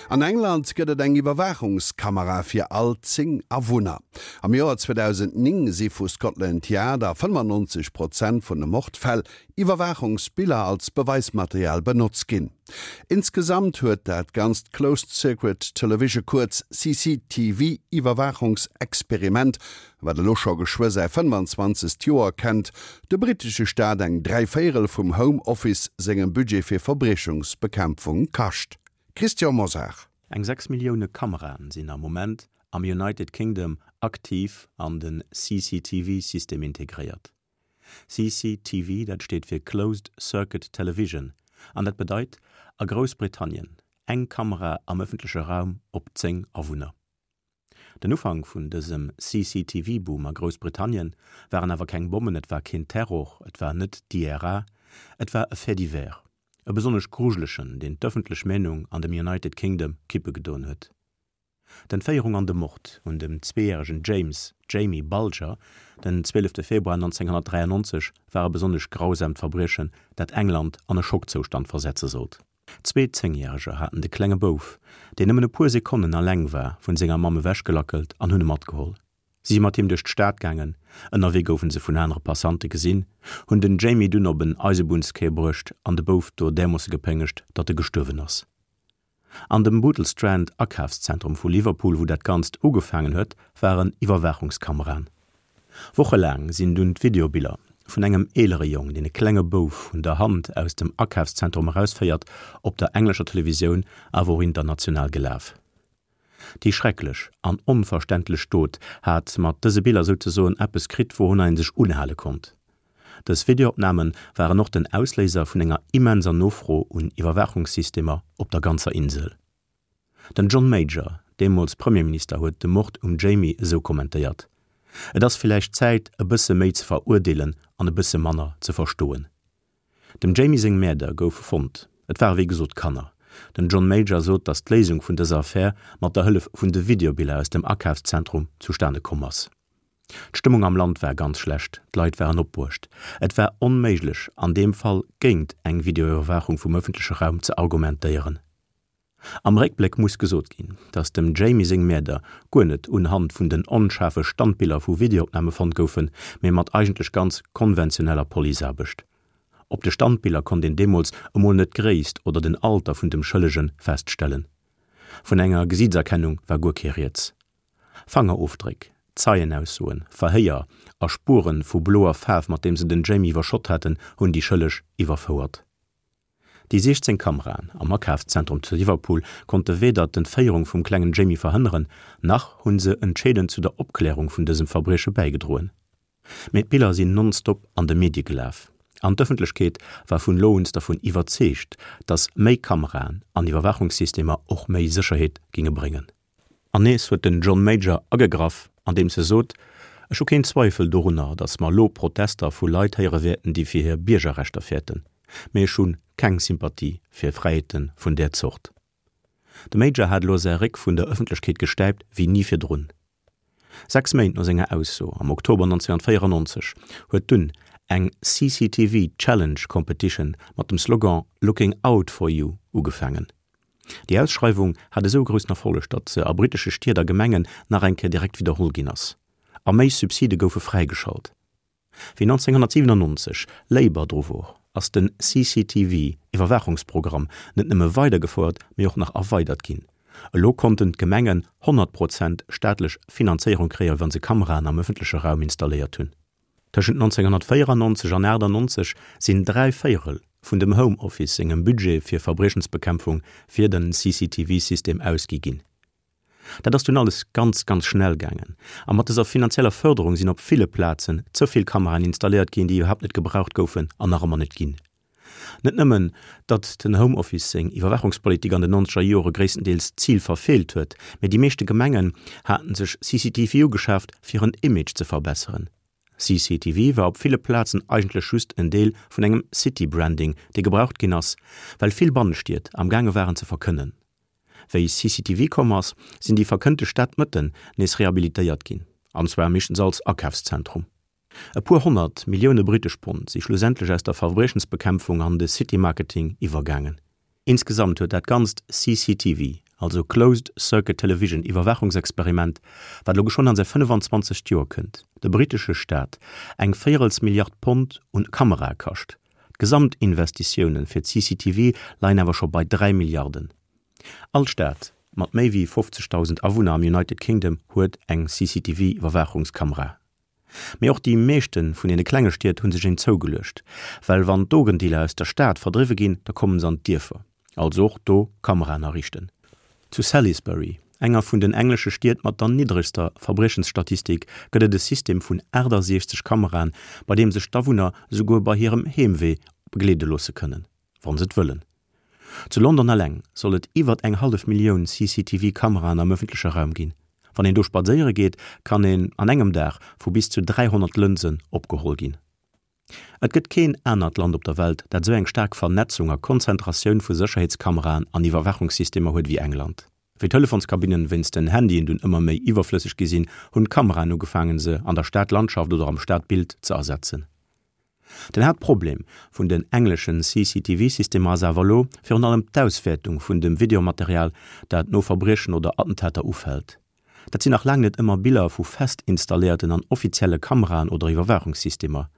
An England gëtt et eng Iwwerwaachungskamera fir all 10 Awunner. Am Joer 2009 si vu Scotland Yard a 95 Prozent vun de Mordfäll Iwwerwaachungsbiller als Beweismaterial benotzt ginn. Insgesamt huet dat ganzt Closed Circuit Television, kuerz CCTV, Iwwerwaachungsexperiment, wat elo scho geschwë säi 25. Joer kennt, de brittesche Staat eng Dräivéierel vum Home Office sengem Budget fir Verbriechungsbekämpfung kascht. Christian Mosar. Eng 6 Millioune Kameraen sinn am Moment am United Kingdom aktiv an de CCTV-System integréiert. CCTV, dat steet fir Closed Circuit Television an dat bedeit a Groussbritannien eng Kamera am ëffentleche Raum op 10 Awunner. Den Ufank vun dësem CCTV-Boom a Groussbritannien waren awer keng Bommen, et war keen Terror, et war net d'IRA, et war e Fait divers, e besonnesch grujelegen, deen d'ëffentlech Meenung an dem United Kingdom kippe gedoen huet. D'Entféierung an de Mord un dem zweejäregen James Jamie Bulger den 12 Februar 1993 war e besonnesch grausamt Verbriechen, dat England an e Schockzoustand versetze sollt. Zwee Zéngjäreger haten de klenge Bouf, deen nëmmen e puer Sekonnen alleng war, vun senger Mamm ewechgelackelt an hunn e matgeholl. Si si mat him duerch d'Stad gaangen, ënnerwee goufe se vun anere Passante gesinn, hunn den Jamie dunn op en Eisebunnssquai bruecht an de Bouf do därmoosse gepéngegt, datt e gestuerwen ass. An dem Bootle Strand Akafszentrum vu Liverpool, wou dat Ganzt ugefaangen huet, waren Iwwerwaachungskameraen. Wochelaang sinn dunn d'Videobiller vun engem eelere Jong, deen e klenge Bouf un der Hand aus dem Akafszentrum erausféiert, op der englescher Televisioun, awer och international gelaf. Déi schrecklech an onverständlech Dot hat mat dëse Biller souzesoen eppes kritt, wourunner ee sech unhale konnt. Dës Videoopname waren och den Ausléiser vun enger immenser Nofro un Iwwerwaachungssystemer op der ganzer Insel. Den John Major, deemools Premierminister, huet de Mord um Jamie esou kommentéiert, Et ass villäicht Zäit, e bësse méi ze verurdeelen an e bësse manner ze verstoen. Dem Jamie seng Mäerder goufe fonnt. Et ware wéi gesot Kanner. Den John Major sot, datt d'Léisung vun dëser Affär mat der Hëllef vun de Videobiller aus dem Akafszentrum zustane komm ass. D'Stëmmung am Land war ganz schlecht, d'Leit waren opbruecht. Et war onméiglech, an deem Fall géint eng Videoiwwerwaachung vum ëffentleche Raum ze argumentéieren. Am Réckbléck muss gesot ginn, datt dem Jamie seng Mäerder guer net unhand vun den onschaarfe Standbiller vu Videoopname fonnt goufen, mee mat eigentlech ganz konventioneller Policeaarbecht. Op de Standbiller konnt een deemools emol net d'Gréisst oder den Alter vun dem Schëllege feststellen. Vun enger Gesiitserkennung war guer kee Rieds. Fangerofdréck, Zeienaussoen, Verhéier a Spuere vu bloer Faarf, mat deem se den Jamie iwwerschott haten, hunn déi Schëlleg iwwerfouert. Déi 16 Kameraen am Akafszentrum zu Liverpool konnte weder d'Entféierung vum klengen Jamie verhënneren, nach hu se entscheedend zu der Opklärung vun dësem Verbrieche bäigedroen. Mee d'Biller sinn nonstop an de Medie gelaf an d'Ëffentlechkeet war vun elo uns dervun iwwerzeegt, datt méi Kameraen an Iwwerwaachungssystemer och méi Sécherheet géinge bréngen. An nees huet den John Major agegraff, andeems e sot, Ech hu keen Zweifel dorunner, datt mer elo Protester vu Leit héiere wäerten, déi fir hir Biergerrechter fäerten, mee ech hu keng Sympathie fir Fräiheete vun där Zort. De Major hat elo säi Réck vun der Ëffentlechkeet gestäipt wéi ni virdrun. Sechs Méint no senger Ausso, am Oktober 1994, huet dunn eng CCTV Challenge Competition mat dem Slogan Looking Out For You ugefaangen. Déi Ausschreiwung hat esou e groussen Erfolleg, datt se a brittesche Stied a Gemengen nach eng Kéier direkt widderholl ginn ass. A méi Subside goufe fräigeschalt. Wéi 1997 Labour dru wor, ass den CCTV-Iwwerwaachungsprogramm net nëmme weidergefouert, mee och nach erweidert ginn. Elo konnten d'Gemengen 100 Prozent staatlech Finanzéierung kréien, wa se Kameraen am ëffentleche Raum installéiert hunn. Tëschent 1994 an 98 sinn 3 Véierel vun dem Home Office sengem Budget fir Verbriechensbekämpfung fir den CCTV-System ausgi ginn. Dat ass dunn alles ganz, ganz schnell gaangen a mat dëser finanzieller Fërderung sinn op ville Plazen ze vill Kameraen installéiert ginn, déi iwwerhaapt net gebraucht goufen an nach ëmmer net ginn. Net nëmmen, datt den Home Office seng Iwwerwaachungspolitik an den nonzeger Jore gréisstendeels d'Zil verfeelt huet, mee déi meeschte Gemengen haten sech CCTV ugeschaaft, fir en Image ze verbesseren. CCTV war op ville Plazen eigentlech just en Deel vun engem City-Branding, dee gebraucht ginn ass, well vill Bannestied am gaange waren ze verkënnen. Wéi CCTV komm ass, sinn déi verkënnte Stadmëtten nees rehabilitéiert ginn, an zwar meeschtens als Akafszentrum. E puer 100 Millioune brittesch Pond si schlussendlech aus der Verbriechensbekämpfung an de City-Marketing iwwergaangen. Insgesamt huet dat ganzt CCTV. also Closed Circuit Television Iwwerwaachungsexperiment, wat elo geschwënn an säi 25. Joer kënnt, de brittesche Staat eng véierels Milliard Pond un Kamerae kascht. D'Gesamtinvestitioune fir d'CCTV leien awer scho bei 3 Milliarden. All Stad mat méi wéi 50.000 Awunner am United Kingdom huet eng CCTV-Iwwerwaachungskamera. Mee och déi meeschte vun deene klenge Stied hu sech een zougeluecht, well wann d'Drogendealer aus der Stad verdriwwe ginn, da kommen se an d'Dierfer. Also och do Kameraen ariichten. Zu Salisbury, enger vun den englesche Stied mat der niddregster Verbriechensstatistik, gëtt et e System vun 68 Kameraen, bei deem sech d'Awunner esouguer bei hirem Heemwee begleede loosse kënnen. Wann se et wëllen. Zu London eleng soll et iwwert eng hallef Millioun CCTV-Kameraen am ëffentleche Raum ginn. Wann een do spadséiere geet, kann een an engem Dag vu bis zu 300 Lënsen opgeholl ginn. Et gëtt keen anert Land op der Welt, dat esou eng staark Vernetzung a Konzentratioun vu Sécherheetskameraen an Iwwerwaachungssystemer huet ewéi England. Wéi d'Telefonskabinnen wéinst den Handyen dunn ëmmer méi iwwerflësseg gi sinn, hunn d'Kameraen ugefaangen, se an der Stadlandschaft oder am Stadbild ze ersetzen. Den Haaptproblem vun den engleschen CCTV-Systemer ass awer elo virun allem d'Auswäertung vun dem Videomaterial, dat no Verbriechen oder Attentater ufält. Dat sinn nach laang net ëmmer Biller vu fest installéierten an offizielle Kameraen oder Iwwerwaachungssystemer.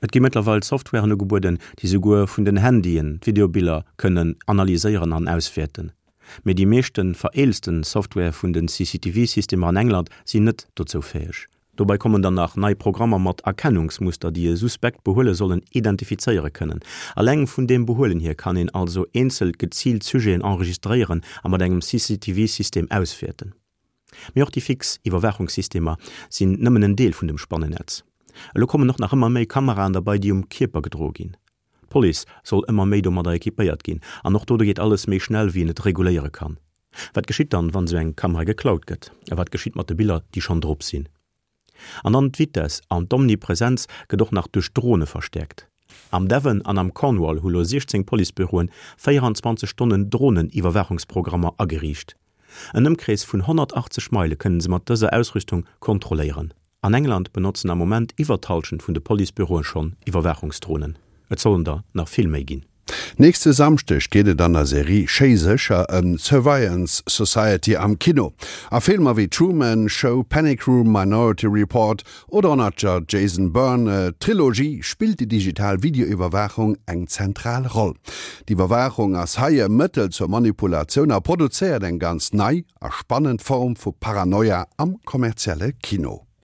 Et gi mëttlerweil Softwaren ugebueden, déi souguer vun den Handyen d'Videobiller kënnen analyséieren an auswäerten. Mee déi meeschte vereelzten Software vun den CCTV-Systemer an England sinn net dozou fäeg. Dobei kommen dann nach nei Programmer mat Erkennungsmuster, déi e suspekt Behuele sollen identifizéiere kënnen. Alleng vun deem Behuelen hier kann een also eenzel geziilt Sujeten enregistréieren a mat engem CCTV-System auswäerten. Mee och déi fix Iwwerwaachungssystemer sinn nëmmen en Deel vun dem Spannennetz. Elo kommen och nach ëmmer méi Kameraen derbei, déi um Kierper gedroe ginn. D'Police soll ëmmer méi domadder equipéiert ginn an och do geet alles méi schnell, wéi een et reguléiere kann. Wat geschitt dann, wann esou eng Kamera geklaut gëtt? A wat geschitt mat de Biller, déi schonn drop sinn? An dann d'Vitess an d'Omnipresenz gëtt och nach duerch Drone verstäerkt. Am Devon an am Cornwall hu lo 16 Policebüroen 24 Stonnen Dronen-Iwwerwaachungsprogrammer ageriicht. En Ëmkrees vun 180 Meile kënnen se mat dëser Ausrüstung kontrolléieren. An England benotzen am Moment iwwer d'Hallschent vun de Policebüroe schonn Iwwerwaachungsdronen. Et sollen der nach vill méi ginn. Nächste Samschdeg geet et an der Serie Schéi sécher ëm d'Surveillance Society am Kino. A Filmer wéi Truman Show, Panic Room, Minority Report oder och nach der Jason Bourne Trilogie spillt déi digital Videoiwwerwaachung eng zentral Roll. D'Iwwerwaachung ass hei e Mëttel zur Manipulatioun a produzéiert eng ganz nei a spannend Form vu Paranoia am kommerzielle Kino.